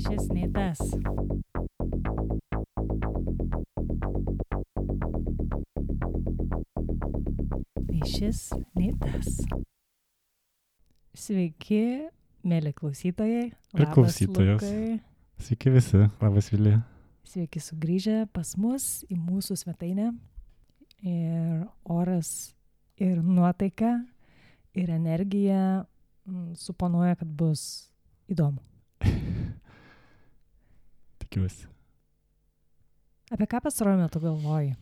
Šis nei tas. Nei šis, nei tas. Sveiki, mėly klausytojai. Ir klausytojos. Lukai. Sveiki visi, labas Vilija. Sveiki sugrįžę pas mus į mūsų svetainę. Ir oras, ir nuotaika, ir energija suponuoja, kad bus įdomu. Tikiuosi. Apie ką pastaruoju metu galvoji?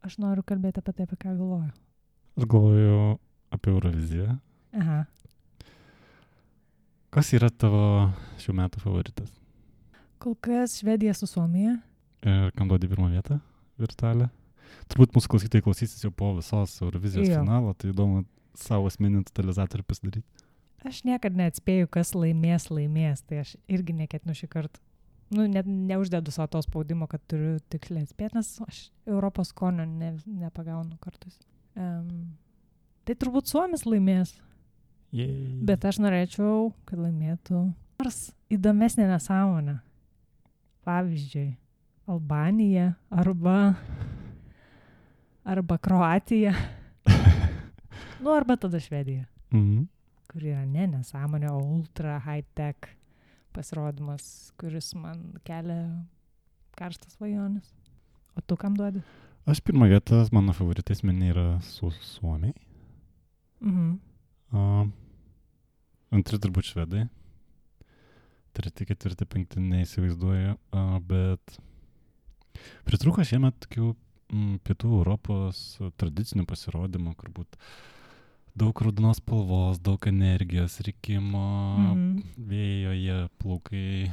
Aš noriu kalbėti apie tai, apie ką galvoju. Aš galvoju apie Euroviziją. Aha. Kas yra tavo šių metų favoritas? Kol kas Švedija su Suomija. Ir kam duodi pirmą vietą virtualią? Turbūt mūsų klausytojai klausysis jau po visos Eurovizijos finalo, tai įdomu savo asmeninį totalizatorių pasidaryti. Aš niekad neatspėju, kas laimės, tai aš irgi neketinu šį kartą. Neuždedu savo to spaudimo, kad turiu tiksliai atspėti, nes aš Europos skonio nepagaunu kartais. Tai turbūt Suomis laimės. Yay. Bet aš norėčiau, kad laimėtų nors įdomesnė nesąmonė. Pavyzdžiui, Albanija arba Kroatija. Arba tada Švedija. Kur yra nesąmonė, o ultra high-tech pasirodymas, kuris man kelia karštas svajonės. O tu kam duodi? Aš pirmą vietą, mano favoritai asmeniai yra Suomiai. Antri turbūt Švedai. Treti, ketvirti, penkti neįsivaizduoju, bet pritrūko šiemet tokių pietų Europos tradicinių pasirodymų, kur būt daug raudonos spalvos, daug energijos, rikimo, vėjoje, plaukai,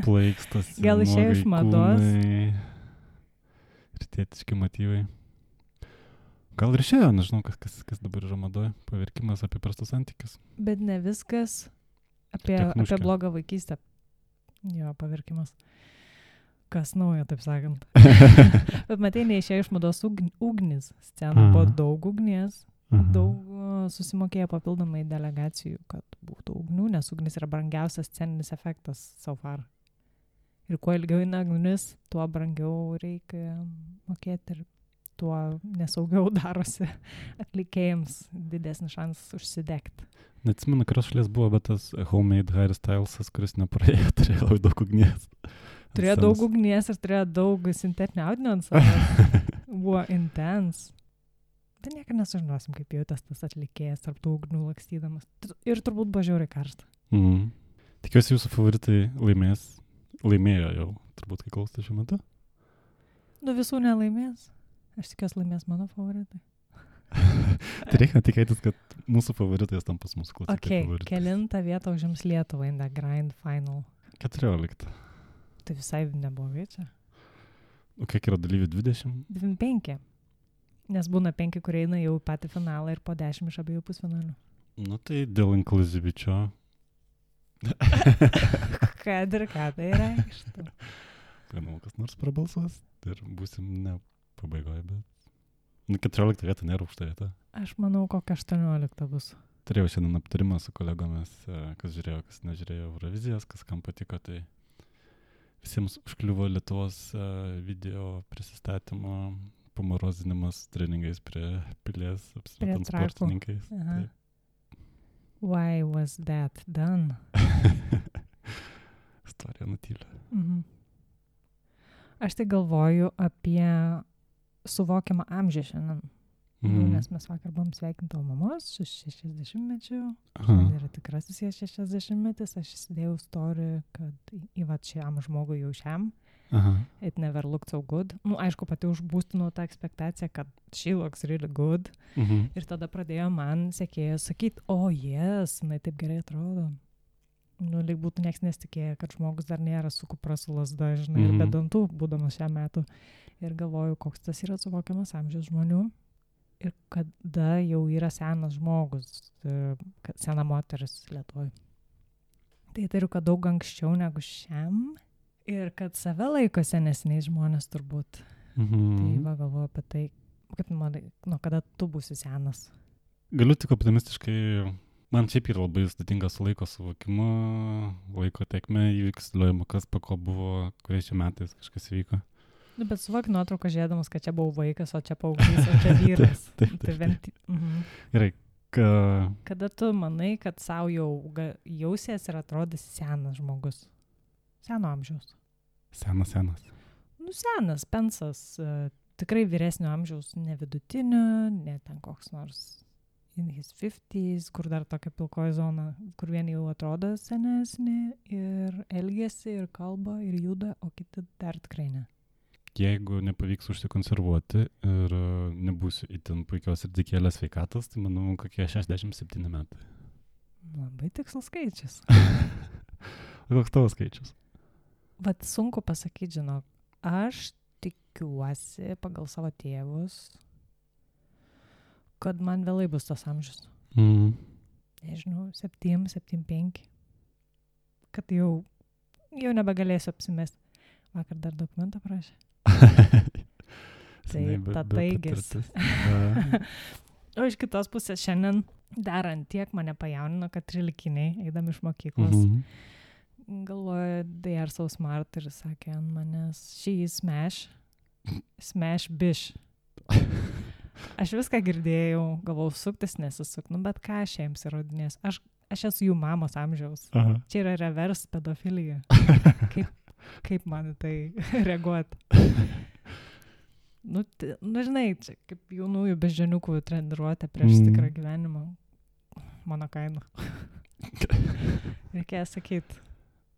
plaikstosi, gal išėjo iš mados? Rytietiški motyvai. Gal ir išėjo, nežinau, kas dabar yra madoje, paverkimas apie prastus santykius. Bet ne viskas apie blogą vaikystę. Jo, paverkimas. Kas naujo, taip sakant. Bet matai, neišėjo iš mados ugnis. Scena buvo daug ugnies. Daug susimokėjo papildomai delegacijų, kad būtų ugnių, nes ugnis yra brangiausias sceninis efektas so far. Ir kuo ilgiau eina ugnis, tuo brangiau reikia mokėti ir tuo nesaugiau darosi atlikėjams didesnis šansas užsidegti. Neatsimenu, kurios šalies buvo, bet tas homemade Harry Stylesas, kuris nepraėjo, turėjo labai daug ugnies. Turėjo daug ugnies ir turėjo daug sintetinio audinio ant savęs. Buvo intense. Tai niekada nesužinosim, kaip jautės tas atlikėjas tarp tų ugnių lakstydamas. Ir turbūt buvo žiauriai karšta. Tikiuosi jūsų favoritai laimėjo jau, turbūt kai klausite šiuo metu. Visų nelaimės. Aš tikiuosi laimės mano favoritai. Tai reikia tikėtis, kad mūsų favoritais tampas mūsų klausytojai favoritais. Kelintą vietą užims Lietuvą in the grand final? 14. Tai visai neblogai čia. O kiek yra dalyvių? 20? 25. Nes būna 5, kurie eina jau patį finalą ir po 10 iš abiejų pusfinalių. Tai dėl inkluzivičio. Kad ir ką tai reikštų. Manau, kas nors prabalsuos ir būsim ne pabaigoje, bet 14 vieta nėra aukšta vieta. Aš manau, kokia 18 bus. Turėjau šiandien aptarimą su kolegomis, kas žiūrėjo, kas nežiūrėjo Eurovizijos, kas kam patiko, tai visiems užkliuvo Lietuvos video prisistatymo pamorozinimas treningais prie pilies, apsimetant sportininkais. Why was that done? Istorija nutylia. Aš tai galvoju apie suvokiamą amžių šiandien. Nes mes vakar buvom sveikinti mamos 60-mečių. Šiandien yra tikrasis 60-metis. Aš įsidėjau story, kad šiam žmogui jau šiam. It never looked so good. Aišku, pati užbūstinau tą ekspektaciją, kad she looks really good. Ir tada pradėjo man sekėjas sakyti, yes, jinai taip gerai atrodo. Lyg būtų nieks nesitikėjo, kad žmogus dar nėra su kupra su lazda, žinai, ir be dantų, būdamas šiam metu. Ir galvoju, koks tas yra suvokiamas amžius žmonių. Ir kada jau yra senas žmogus, sena moteris Lietuvoje. Tai turiu, kad daug anksčiau negu šiam. Ir kad save laiko senesniais žmonės turbūt. Tai galvoju apie tai, kaip manai, nuo kada tu būsi senas. Galiu tik optimistiškai Man šiaip yra labai sudėtingas laiko suvokimu, laiko tekme įvyksliuojama, kas po ko buvo, kuriais čia metais kažkas vyko. Nu, bet suvok nuotrauką žiūrėdamas, kad čia buvau vaikas, o čia paauglys, o čia vyras. Gerai. Kada tu manai, kad savo jau jausies ir atrodys senas žmogus? Seno amžiaus. Senas. Nu, senas, pensas, tikrai vyresnio amžiaus, ne vidutinio, ne ten koks nors in his 50s, kur dar tokia pilkoji zona, kur vieni jau atrodo senesni ir elgiasi, ir kalba, ir juda, o kiti dar tikrai ne. Jeigu nepavyks užsikonservuoti ir nebūsiu itin puikios ir dikėlės sveikatos, tai manau, kokie 67 metai. Labai tikslus skaičius. Koks tavo skaičius? Vat sunku pasakyti, žinok, aš tikiuosi pagal savo tėvus, kad man vėlai bus tas amžius. Nežinau, 7-5. Kad jau nebegalėsiu apsimesti. Vakar dar dokumentą prašė. Tai taigis. O iš kitos pusės šiandien dar ant tiek mane pajaunino, kad 13-iniai, eidami iš mokyklos, galvoja, they are so smart ir sakė ant manęs, she is smash bish. Aš viską girdėjau, galvau, suktis nesisuk, nu bet ką aš jiems įrodinės. Aš esu jų mamos amžiaus. Aha. Čia yra reverse pedofilija. Kaip man tai reaguoti? Nu, žinai, čia kaip jaunųjų beždžioniukų treniruotė prieš tikrą gyvenimą. Mano kaina. Reikėjo sakyti,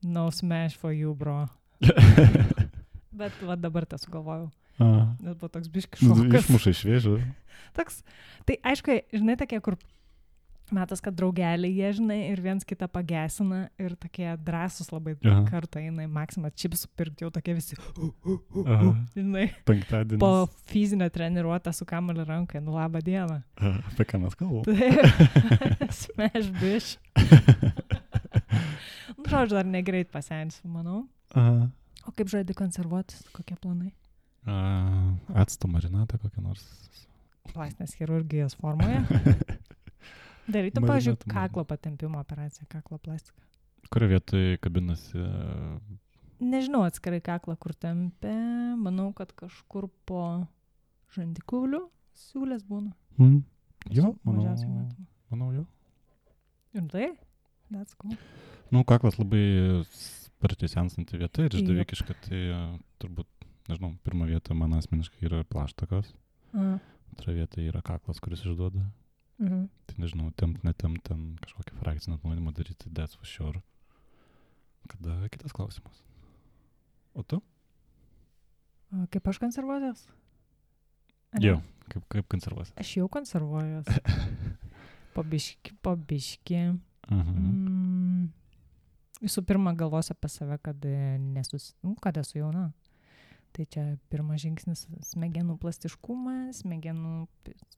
no smash for you, bro. Bet va dabar tą sugalvojau. Nes buvo toks biški šokas. Išmuša iš vėžio. Toks, tai aišku, žinai, tokie, kur metas, kad draugeliai jie, žinai, ir viens kitą pagesina ir tokie drąsus labai kartą eina į Maksimą čipsų pirkti, jau tokie visi, žinai, penktadienis. Po fizinio treniruotę su kamuoliu rankai, nu labą dieną. Apie ką mes kalbam? Smash bish. Nu, žodžiu, dar negreit pasensiu, manau. O kaip žaidži konservuotis, kokie planai? Acto marinatą kokią nors. Plastinės chirurgijos formoje. Darytum, pavyzdžiui, kaklo patempimo operaciją, kaklo plastiką. Kurio vietoj kabinasi? Nežinau atskirai kaklą, kur tempia. Manau, kad kažkur po žandikauliu siūlės būna. Jo, manau jo. Ir tai? That's cool. Nu, kaklas labai sparčiai sensanti vieta ir išdavikiška, tai turbūt, nežinau, pirma vieta man asmeniškai yra plaštakos. Antra vieta yra kaklas, kuris išduoda. Tai nežinau, netempt ten kažkokį frakcinį atnaujinimą daryti, that's for sure. Kada kitas klausimas? O tu? Kaip aš konservuojas? Jo, kaip konservuojas? Aš jau konservuojas. Po biški. Visų pirma, galvosiu apie save, kad esu jauna. Tai čia pirmas žingsnis smegenų plastiškumą, smegenų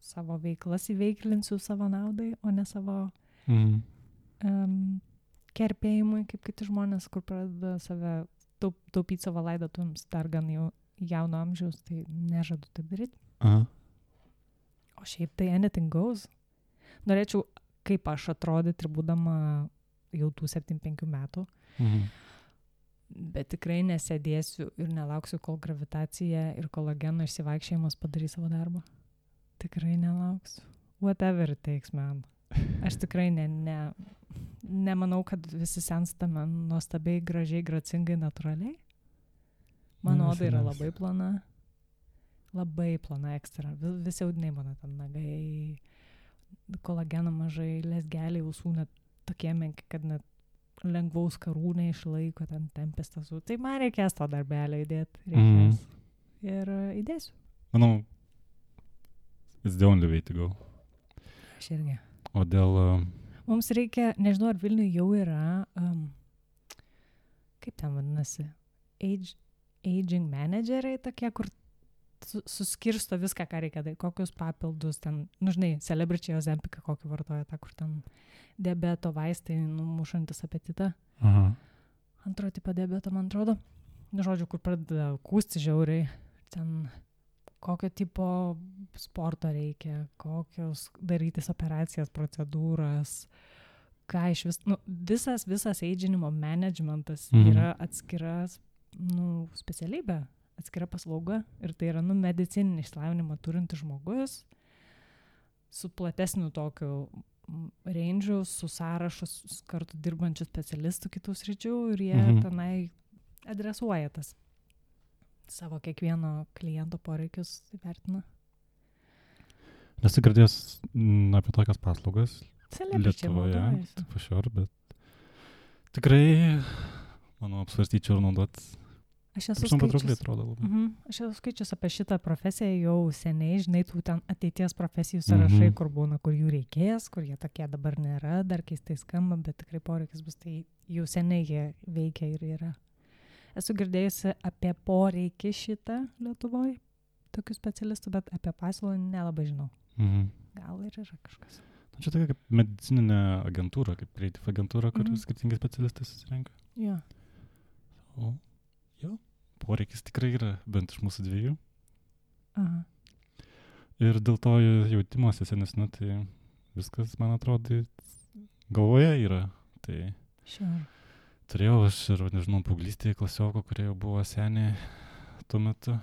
savo veiklas įveiklinsiu savo naudai, o ne savo kerpėjimui, kaip kiti žmonės, kur pradeda save taupyti savo laidotuvėms dar gan jauno amžiaus, tai nežadu taip daryti. O šiaip tai anything goes. Norėčiau, kaip aš atrodyti ir būdama jau tų 75 metų. Bet tikrai nesėdėsiu ir nelauksiu, kol gravitacija ir kolageno išsivaikščiojimas padarys savo darbą. Tikrai nelauksiu. Whatever it takes, man. Aš tikrai nemanau, kad visi senstame nuostabiai, gražiai, gracingai, natūraliai. Mano oda yra labai plona. Labai plona ekstra. Visi audiniai mano ten nagai, kolageno mažai, lesgeliai, ausų net tokie menki, kad net lengvaus karūnai išlaiko, ten tempės tasų. Tai man reikės to darbelio įdėti. Reikės. Ir įdėsiu. Manau, it's the only way to go. Aš irgi. O dėl... Mums reikia, nežinau, ar Vilniuje jau yra, kaip ten vadinasi, aging manageriai tokie, kur suskirsto viską, ką reikia daryti, kokius papildus ten, nu žinai, celebrity Ozempiką kokį vartoja, tą, kur ten diabeto vaistai numušantis apetitą. Antro tipo diabeto, man atrodo. Nu, žodžiu, kur pradeda kūsti žiauriai, ten kokio tipo sporto reikia, kokios darytis operacijas, procedūras, ką iš visas eidžinimo managementas Mhm. yra atskiras, specialybė, atskira paslauga ir tai yra, medicininį išsilavinimą turintis žmogus su platesniu tokiu range'u, su sąrašus kartu dirbančių specialistų kitų sričių ir jie tenai adresuoja tas savo kiekvieno kliento poreikius įvertina. Nesu girdėjęs apie tokias paslaugas Celebričiai Lietuvoje, naudojasi. pašior, bet tikrai, manau, apsvarstyčiau ir naudot. Aš esu Patraukliai skaičius. atrodo labai. Aš esu skaičius apie šitą profesiją jau seniai, žinai, tų ten ateities profesijų sąrašai, kur būna, kur jų reikės, kur jie tokie dabar nėra, dar keistai skamba, bet tikrai poreikis bus, tai jau seniai jie veikia ir yra. Esu girdėjusi apie poreikį šitą Lietuvoje, tokių specialistų, bet apie pasiūlą nelabai žinau. Gal ir yra kažkas. Čia tokia kaip medicininė agentūra, kaip creative agentūra, kur skirtingi specialistai susirenka. Jo. O, jo, poreikis tikrai yra, bent iš mūsų dviejų. Aha. Ir dėl to jautimosi senesniu, tai viskas, man atrodo, galvoje yra. Tai Sure. turėjau aš ir, nežinau, paauglystėje klasioko, kurie jau buvo seniai tuo metu.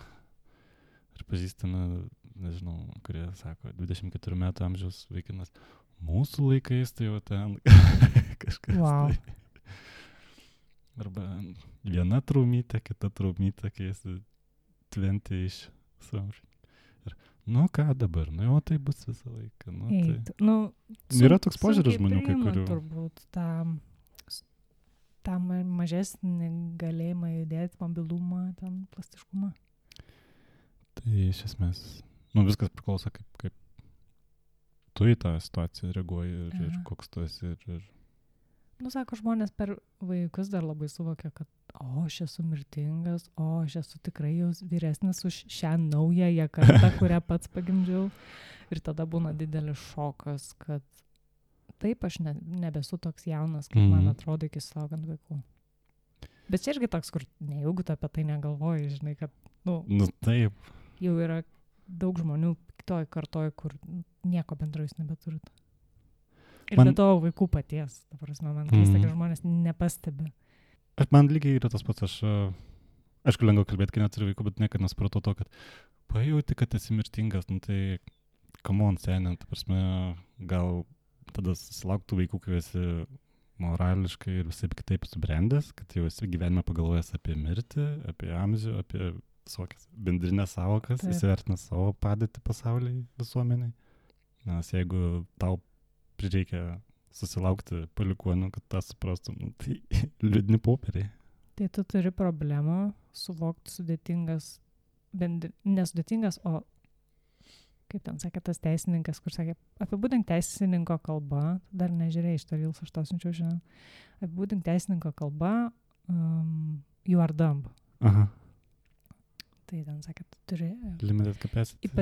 Ir pažįstame, nežinau, kurie sako, 24 metų amžiaus vaikinas. Mūsų laikais tai jau ten kažkas. Wow. Tai. Arba viena traumytė, kita traumytė, kai esi 20 something. Ir, ką dabar? Jo, tai bus visą laiką. Yra toks požiūris žmonių, kai kurių. Turbūt tą mažesnį galėjimą judėti, mobilumą, ten plastiškumą. Tai iš esmės, viskas priklauso, kaip tu į tą situaciją reaguoji ir koks tu esi. Sako, žmonės per vaikus dar labai suvokia, kad aš esu mirtingas, aš esu tikrai jau vyresnis už šią naująją kartą, kurią pats pagimdžiau. Ir tada būna didelis šokas, kad taip, aš nebesu toks jaunas, kaip man atrodo iki susilaukant vaikų. Bet čia irgi toks, kur nejaugu tu apie tai negalvoji, žinai, kad, taip. Jau yra daug žmonių kitoj kartoj, kur nieko bendro jūs nebeturit. Ir be to vaikų paties, ta prasme, man keista, kad žmonės nepastebi. Man lygiai yra tas pats, aišku, lengva kalbėti, kai neturi vaikų, bet niekada nesupratau to, kad pajauti, kad esi mirtingas, tai come on, seniai, ta prasme, gal tada susilauktų vaikų, kai esi morališkai ir visai kitaip subrendęs, kad jau esi gyvenime pagalvojęs apie mirtį, apie amžių, apie visokias bendrinės savokas, įsivertinęs savo padėtį pasaulyje, visuomeniai. Nes jeigu tau prireikia susilaukti palikuonių, kad tą suprastum, tai liūdni popieriai. Tai tu turi problemą suvokti sudėtingas, nesudėtingas, o kaip ten sakė tas teisininkas, kur sakė, apibūdink teisininko kalbą, dar nežiūrėjai iš to Reels, aš to siunčiau šiandien, apibūdink teisininko kalbą, you are dumb. Aha. Tai ten sakė, tu turi limited capacity.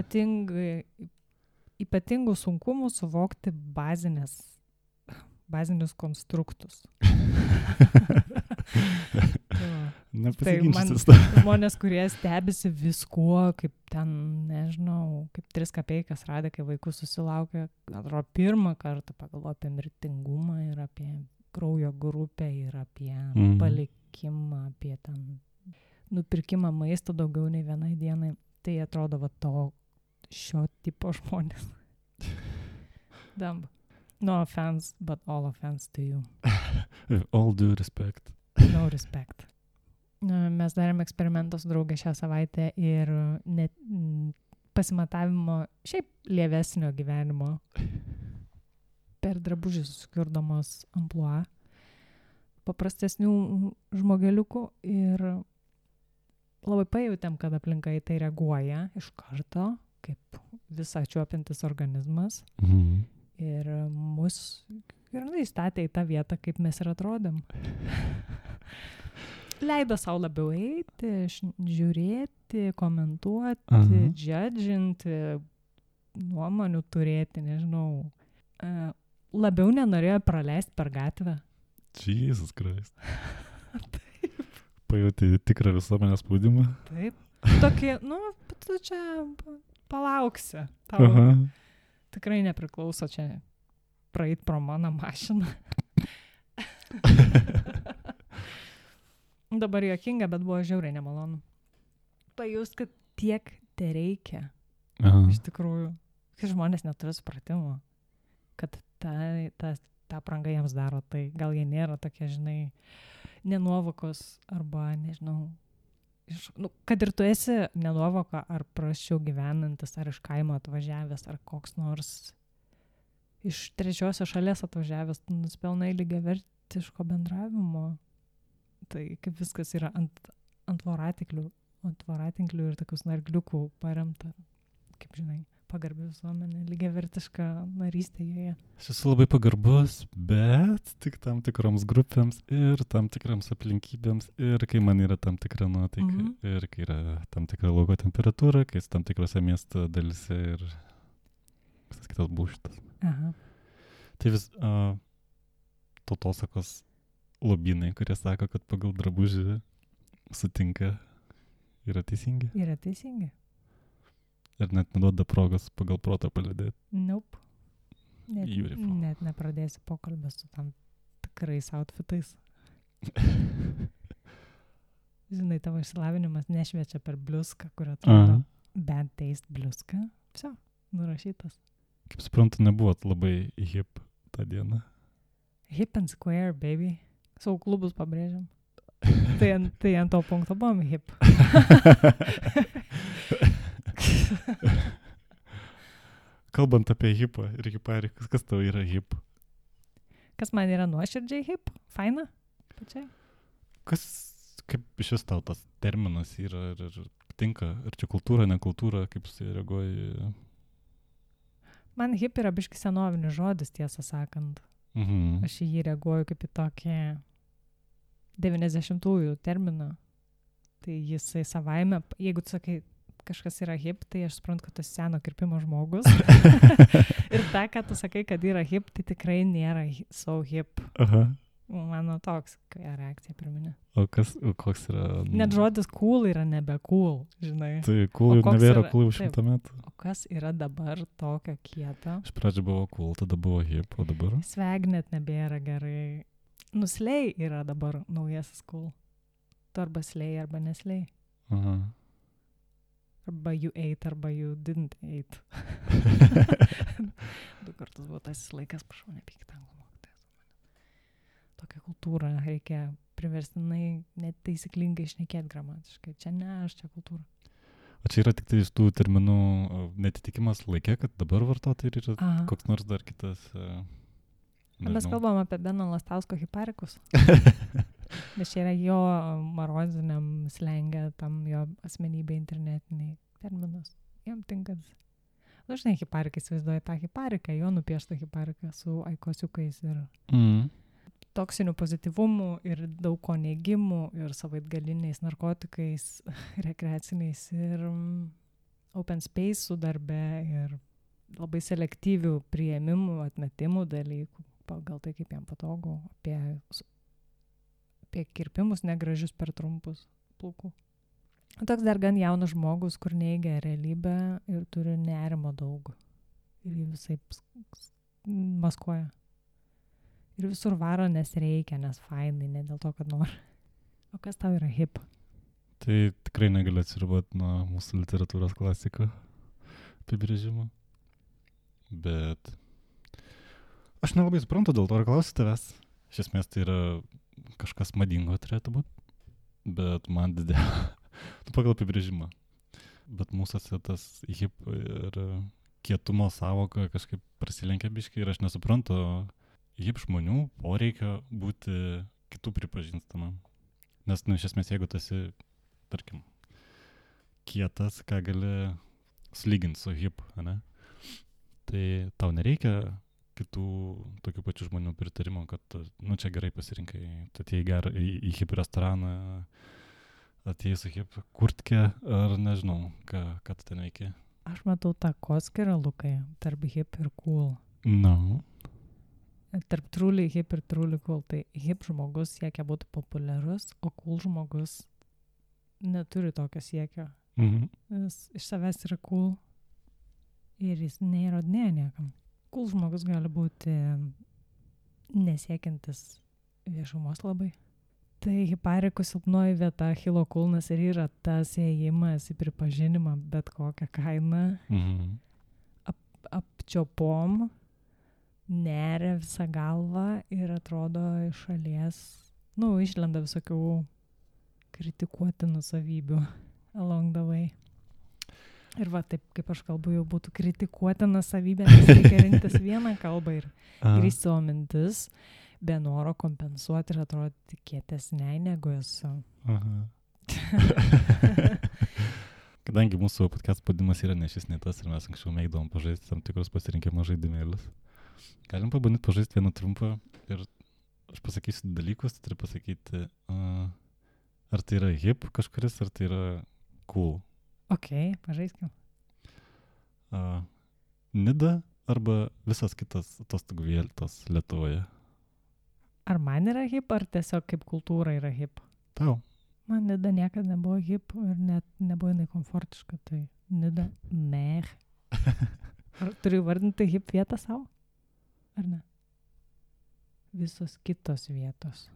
Ypatingų sunkumų suvokti bazinius konstruktus. Nepasiginčytis. Tai žmonės, kurie stebisi viskuo, kaip ten, nežinau, kaip 3 kapeikas radė, kai vaikų susilaukė, atrodo, pirmą kartą pagalvojo apie mirtingumą ir apie kraujo grupę ir apie palikimą, apie ten nupirkimą maisto daugiau nei vienai dienai. Tai atrodo šio tipo žmonės. Dumb. No offense, but all offense to you. With all due respect. No respect. Mes darėm eksperimentą su draugė šią savaitę ir pasimatavimo šiaip lievesnio gyvenimo per drabužį susikurdamos amplua paprastesnių žmogeliukų ir labai pajautėm, kad aplinka į tai reaguoja iš karto, kaip visą čiuopiantis organizmas. Ir mus įstatė į tą vietą, kaip mes ir atrodėm. Leido savo labiau eiti, žiūrėti, komentuoti, judginti, nuomonių turėti, nežinau. Labiau nenorėjo praleisti per gatvę. Jesus Christ. Pajauti tikrą visuomenės spaudimą. Taip. Tokie, tu čia palauksi. Tau tikrai nepriklauso čia praeit pro mano mašiną. Dabar juokinga, bet buvo žiauriai nemalonu. Pajust, kad tiek te reikia. Iš tikrųjų. Kai žmonės neturi supratimo, kad ta apranga jiems daro, tai gal jie nėra tokie, žinai, nenuovokos arba, nežinau, kad ir tu esi nenuovoka ar prasčiau gyvenantis, ar iš kaimo atvažiavęs, ar koks nors iš trečiosios šalies atvažiavęs, tu nuspelnai lygiavertiško bendravimo. Tai kaip viskas yra ant voratinklių ir tokius nargliukų paremta, kaip žinai, pagarbi visuomenė, lygiavertiška narystė joje. Aš esu labai pagarbus, bet tik tam tikroms grupėms ir tam tikrams aplinkybėms ir kai man yra tam tikra nuotaika ir kai yra tam tikra lauko temperatūra, kai esi tam tikrose miesto dalyse ir visas kitas būštas. Aha. Tai vis tautosakos lobynai, kurie sako, kad pagal drabužį sutinka, yra teisingi. Yra teisingi. Ir net neduoda progos pagal protą palydėti. Nope. Net nepradėsi pokalbę su tam tikrais outfitais. Žinai, tavo išsilavinimas nešviečia per bliuską, kurio atrodo bad taste bliuska. Viso, nurašytas. Kaip suprantu, nebuvot labai hip tą dieną. Hip and square, baby. Savo klubus pabrėžiam. Tai ant to punkto buvom hip. Kalbant apie hipą ir hiparikus, kas tau yra hip? Kas man yra nuoširdžiai hip? Faina? Pačiai? Kaip šis tau tas terminas yra ir tinka? Ar čia kultūra, ne kultūra? Kaip su jie reaguoji? Man hip yra biški senovinis žodis, tiesą sakant. Aš į jį reaguoju kaip į tokį 90-ųjų terminą. Tai jisai savaime, jeigu tu sakai, kažkas yra hip, tai aš suprantu, kad tu seno kirpimo žmogus. Ir ta, kad tu sakai, kad yra hip, tai tikrai nėra so hip. Aha. Mano toks reakcija pirminė. O koks yra? Net žodis cool yra nebe cool, žinai. Tai cool jau nebėra cool už 100 metų. O kas yra dabar tokio kieto? Iš pradžio buvo cool, tada buvo hip, o dabar? Swag net nebėra gerai. Slay yra dabar naujasis cool. Tu arba slay, arba neslay. Aha. Arba you ate, arba you didn't ate. 2 kartus buvo tas laikas, prašau, nepykit anglų mokytojas. Tokia kultūra, reikia priverstinai net taisyklingai šnekėti gramatiškai. Čia ne aš, čia kultūra. O čia yra tik tai iš tų terminų netitikimas laikė, kad dabar vartoti ir yra koks nors dar kitas... Mes kalbam apie Beno Lastausko hiparikus. Nes čia yra jo maroziniam slengė, tam jo asmenybė internetiniai terminas. Jam tinkas. Dažnai hiparikai įsivaizduoja tą hipariką, jo nupieštą hipariką su aikosiukais ir toksinių pozityvumų ir daug ko neigimų ir savaitgaliniais narkotikais, rekreaciniais ir open space su darbe ir labai selektyvių priėmimų, atmetimų dalykų. Pagal tai, kaip jam patogu, apie kirpimus negražius per trumpus plaukų. Toks dar gan jaunas žmogus, kur neigia realybę ir turi nerimo daug. Ir jį visai maskuoja. Ir visur varo, nes reikia, nes fainai, ne dėl to, kad nori. O kas tau yra hip? Tai tikrai negaliu atsiriboti nuo mūsų literatūros klasiko apibrėžimo. Bet... Aš nelabai suprantu, dėl to ir klausiu tavęs. Iš esmės tai yra kažkas madingo turėtų būti, bet man tu pagal apibrėžimą. Bet mūsų tas hip ir kietumo savoka kažkaip prasilenkia biškai ir aš nesuprantu hip žmonių poreikio būti kitų pripažįstamam. Nes, iš esmės, jeigu tu esi, tarkim, kietas, ką gali sulyginti su hip, ne? Tai tau nereikia kitų tokių pačių žmonių pritarimo, kad, čia gerai pasirinkai, tu atėjai į hip restoraną, atėjai su hip kurtke, ar nežinau, ką tu ten veiki. Aš matau tą koskirą, Lukai, tarp hip ir cool. No. Tarp truly hip ir truly cool. Tai hip žmogus siekia būti populiarus, o cool žmogus neturi tokio siekio. Jis iš savęs yra cool ir jis neįrodinėja niekam. Cool žmogus gali būti nesiekiantis viešumos labai. Tai hiparikų silpnoji vieta, Achilo kulnas ir yra tas ėjimas į pripažinimą bet kokią kainą. Apčiopom, neria visą galvą ir atrodo iš šalies, išlenda visokių kritikuotinų savybių along the way. Ir va, taip kaip aš kalbu, jau būtų kritikuotina savybė, nes reikia rinktis vieną kalbą ir grįžti savo mintis, be noro kompensuoti ir atrodyti kietesnei negu esu. Kadangi mūsų podcast pavadinimas yra ne šis, ne tas ir mes anksčiau mėgdavom pažaisti tam tikrus pasirinkimo žaidimėlius. Galim pabandyti pažaisti vieną trumpą ir aš pasakysiu dalykus, turi pasakyti, ar tai yra hip kažkuris, ar tai yra cool. Ok, pažaiskim. Nida arba visas kitas atostogų vietos Lietuvoje. Ar man yra hip, ar tiesiog kaip kultūra yra hip? Tau. Man Nida niekada nebuvo hip ir net nebuvo jinai komfortiška, tai Nida meh. Ar turiu vardinti hip vietą savo? Ar ne? Visos kitos vietos.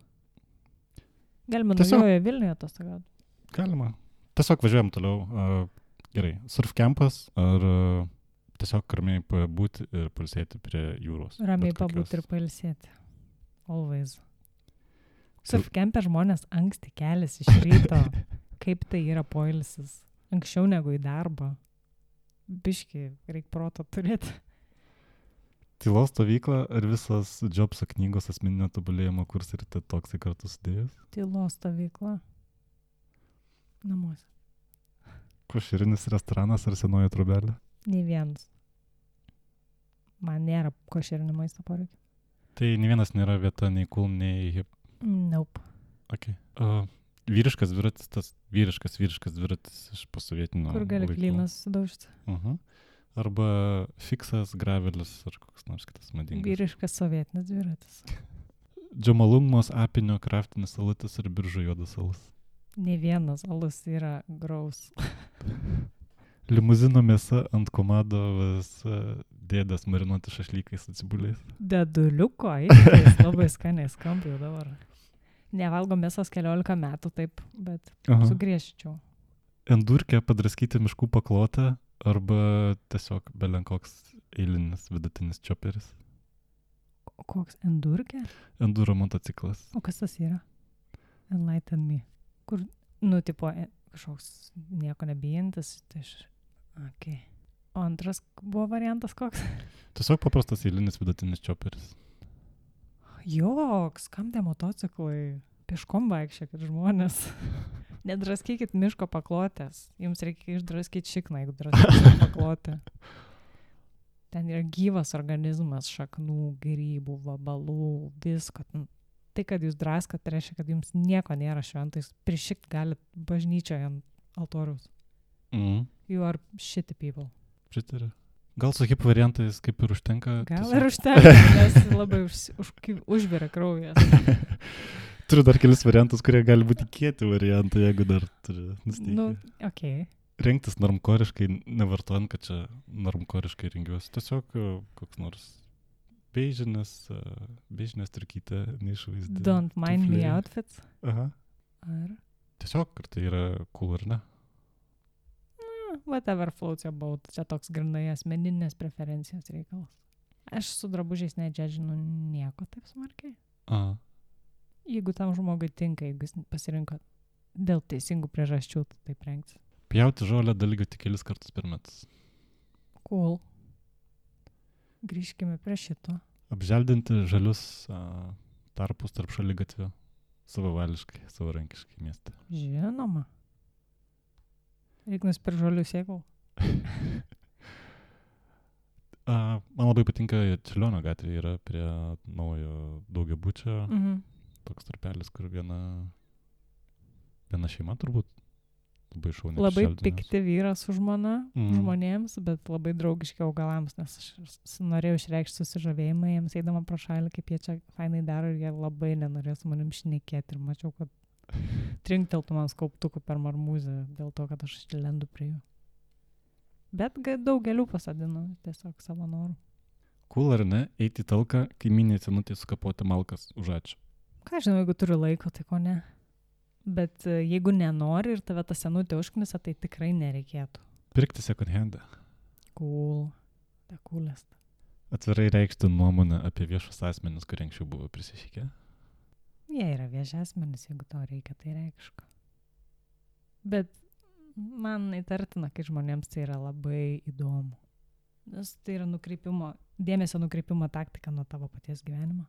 Galima naujoje Vilniuje atostogauti. Galima. Tiesiog važiuojam toliau. Gerai, surfkempas ar tiesiog ramiai pabūti ir pailsėti prie jūros? Ramiai pabūti ir pailsėti. Always. Surfkempe žmonės anksti keliasi iš ryto. Kaip tai yra poilsis? Anksčiau negu į darbą. Biški, reikia proto turėti. Tylos stovykla ar visas Jobso knygos asmeninio tobulėjimo kursai ir toksai kartu sudėjus? Tylos stovykla. Namuose. Košerinis restoranas ar senoji trobelė? Nei vienas. Man nėra košerinio maisto poreikio. Tai nei vienas nėra vieta, nei cool, nei hip. Nope. Okay. Vyriškas dviratis, tas vyriškas dviratis iš posovietinio Kur gali klynas sudaužti. Arba fiksas, gravelis ar koks nors kitas madingas. Vyriškas sovietinis dviratis. Džamalungmos apinio kraftinis alutis ir biržų juodas alus. Ne vienas alus yra graus. Limuzino mėsa ant komados dėdės marinuoti šašlykais atsibuliais. Deduliuko, jis labai skaniai skamba jau dabar. Nevalgo mėsos 14 metų taip, bet sugriežčiau. Endurkė padraskyti miškų paklotę arba tiesiog belenkoks eilinis vidutinis čioperis. Koks endurkė? Enduro motociklas. O kas tas yra? Enlighten me. Kur, tipo, kažkoks nieko nebijantis. Okay. O antras buvo variantas koks? Tiesiog paprastas eilinis vidutinis čioperis. Joks, kam tie motociklai? Pieškom vaikščiokit žmonės. Nedraskykit miško paklotės. Jums reikia išdraskyti šikną, jeigu draskykite paklotę. Ten yra gyvas organizmas, šaknų, grybų, vabalų, visko. Tai, kad jūs draskat, tai reiškia, kad jums nieko nėra šventais. Prišikt galit bažnyčioje ant altoriaus. You are shitty people. Pritariu. Gal su hip variantais kaip ir užtenka? Gal ir užtenka, nes labai užvirė kraujas. Turiu dar kelis variantus, kurie gali būti kieti variantai, jeigu dar turi nusteikti. Okay. Rengtis normkoriškai, nevartojant, kad čia normkoriškai rengiuosi. Tiesiog koks nors beižinės turkytė, neišvaizdi. Don't mind me outfits? Aha. Ar? Tiesiog, ar tai yra cool ar ne? Whatever floats your boat. Čia toks grinai asmeninės preferencijos reikalas. Aš su drabužiais nedžedžinu nieko taip smarkiai. Jeigu tam žmogui tinka, jeigu jis pasirinko dėl teisingų priežasčių, tai taip rengtis. Pjauti žolę dalygio tik kelis kartus per metus. Cool. Grįžkime prie šito. Apželdinti žalius tarpus tarp šaligatvių savavališkai, savarankiškai mieste. Žinoma. Reikia nusipirkti žolių sėklų. Man labai patinka Čiurlionio gatvėje yra prie naujo daugiabučio. Toks tarpelis, kur viena šeima turbūt labai šauniai. Labai pikti vyras su žmona žmonėms, bet labai draugiški augalams, nes aš norėjau išreikšti susižavėjimą jiems eidama pro šalį, kaip jie čia fainai daro ir jie labai nenorėjo su manim šnekėti ir mačiau, kad trinkteltų man skauptukų per marmūzę dėl to, kad aš lendu prie jų. Bet daug gėlių pasadinu tiesiog savo norų. Cool ar ne, eiti į talką, kaimynė senutė sukapoti malkas už ačiū. Ką žinau, jeigu turiu laiko, tai ko ne. Bet jeigu nenori ir tave ta senutė užknisa, tai tikrai nereikėtų. Pirkti second handą. Cool. Ta coolest. Atvirai reikšti nuomonę apie viešus asmenis, kurie anksčiau buvo prisišykę. Jie yra vieši asmenys, jeigu to reikia, tai reikška. Bet man įtartina, kai žmonėms tai yra labai įdomu. Nes tai yra dėmesio nukreipimo taktika nuo tavo paties gyvenimo.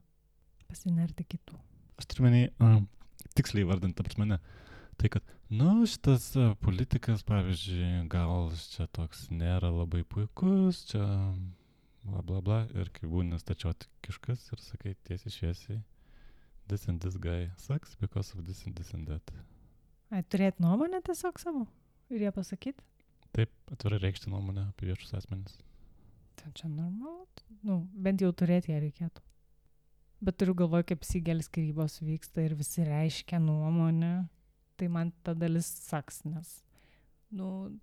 Pasinerti kitų. Aš turiu menį, tiksliai vardant, ta prasme, tai kad, šitas politikas, pavyzdžiui, gal čia toks nėra labai puikus, čia bla bla bla, ir kai būni stačiotikiškas ir sakai tiesiai šviesiai, this and this guy sucks because of this and this and that. Turėti nuomonę tiesiog savo ir ją pasakyti? Taip, atvirai reikšti nuomonę apie viešus asmenis. Tai čia normalu. Bent jau turėti ją reikėtų. Bet turiu galvoje, kaip Sigelis skyrybos vyksta ir visi reiškia nuomonę, tai man ta dalis saks, nes,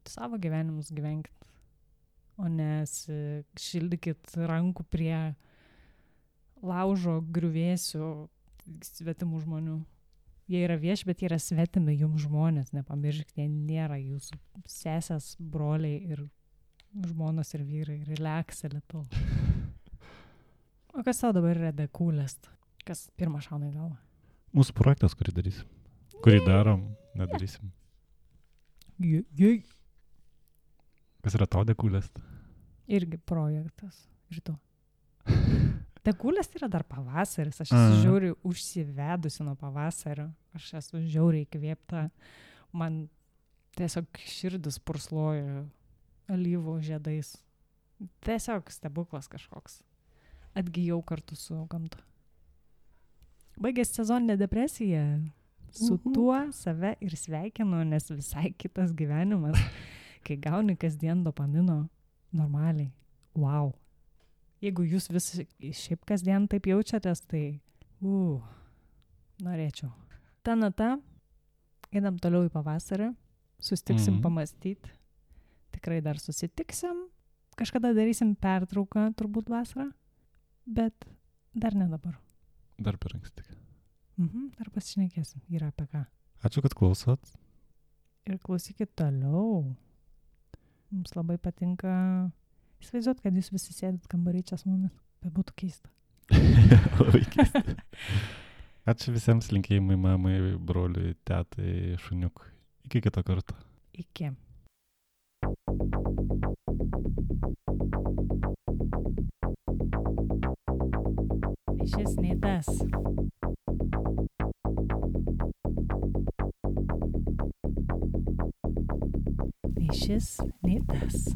savo gyvenimus gyvenkit, o nes šildykit rankų prie laužo griuvėsių svetimų žmonių. Jie yra vieši, bet jie yra svetimi jums žmonės, nepamirškite, jie nėra jūsų sesės, broliai ir žmonos ir vyrai, relaxė lietu. O kas tau dabar yra the coolest? Kas pirmą šauna į galvą? Mūsų projektas, kurį darysim. Kurį darom, nedarysim. Kas yra tau the coolest? Irgi projektas. Ir tu. The coolest yra dar pavasaris. Aš esu žiauriai užsivedusi nuo pavasario. Aš esu žiauriai įkvėpta. Man tiesiog širdis pursloja alyvų žiedais. Tiesiog stebuklas kažkoks. Atgijau kartu su gamta. Baigėsi sezoninė depresija. Su tuo save ir sveikinu, nes visai kitas gyvenimas, kai gauni kasdien dopamino normaliai. Wow. Jeigu jūs visi šiaip kasdien taip jaučiatės, tai norėčiau. Ta nata, einam toliau į pavasarį, sustiksim pamastyti. Tikrai dar susitiksim. Kažkada darysim pertrauką, turbūt vasarą. Bet dar ne dabar. Dar per anksti. Dar pasišnekėsim. Yra apie ką. Ačiū, kad klausot. Ir klausykit toliau. Mums labai patinka įsivaizduot, kad jūs visi sėdit kambarį čia su mumis. Bet būtų keista. Labai keista. Ačiū visiems, linkėjimai mamai, broliui, tetai, šuniukui. Iki kito karto. Iki. Šis nei tas. Nei šis, nei tas.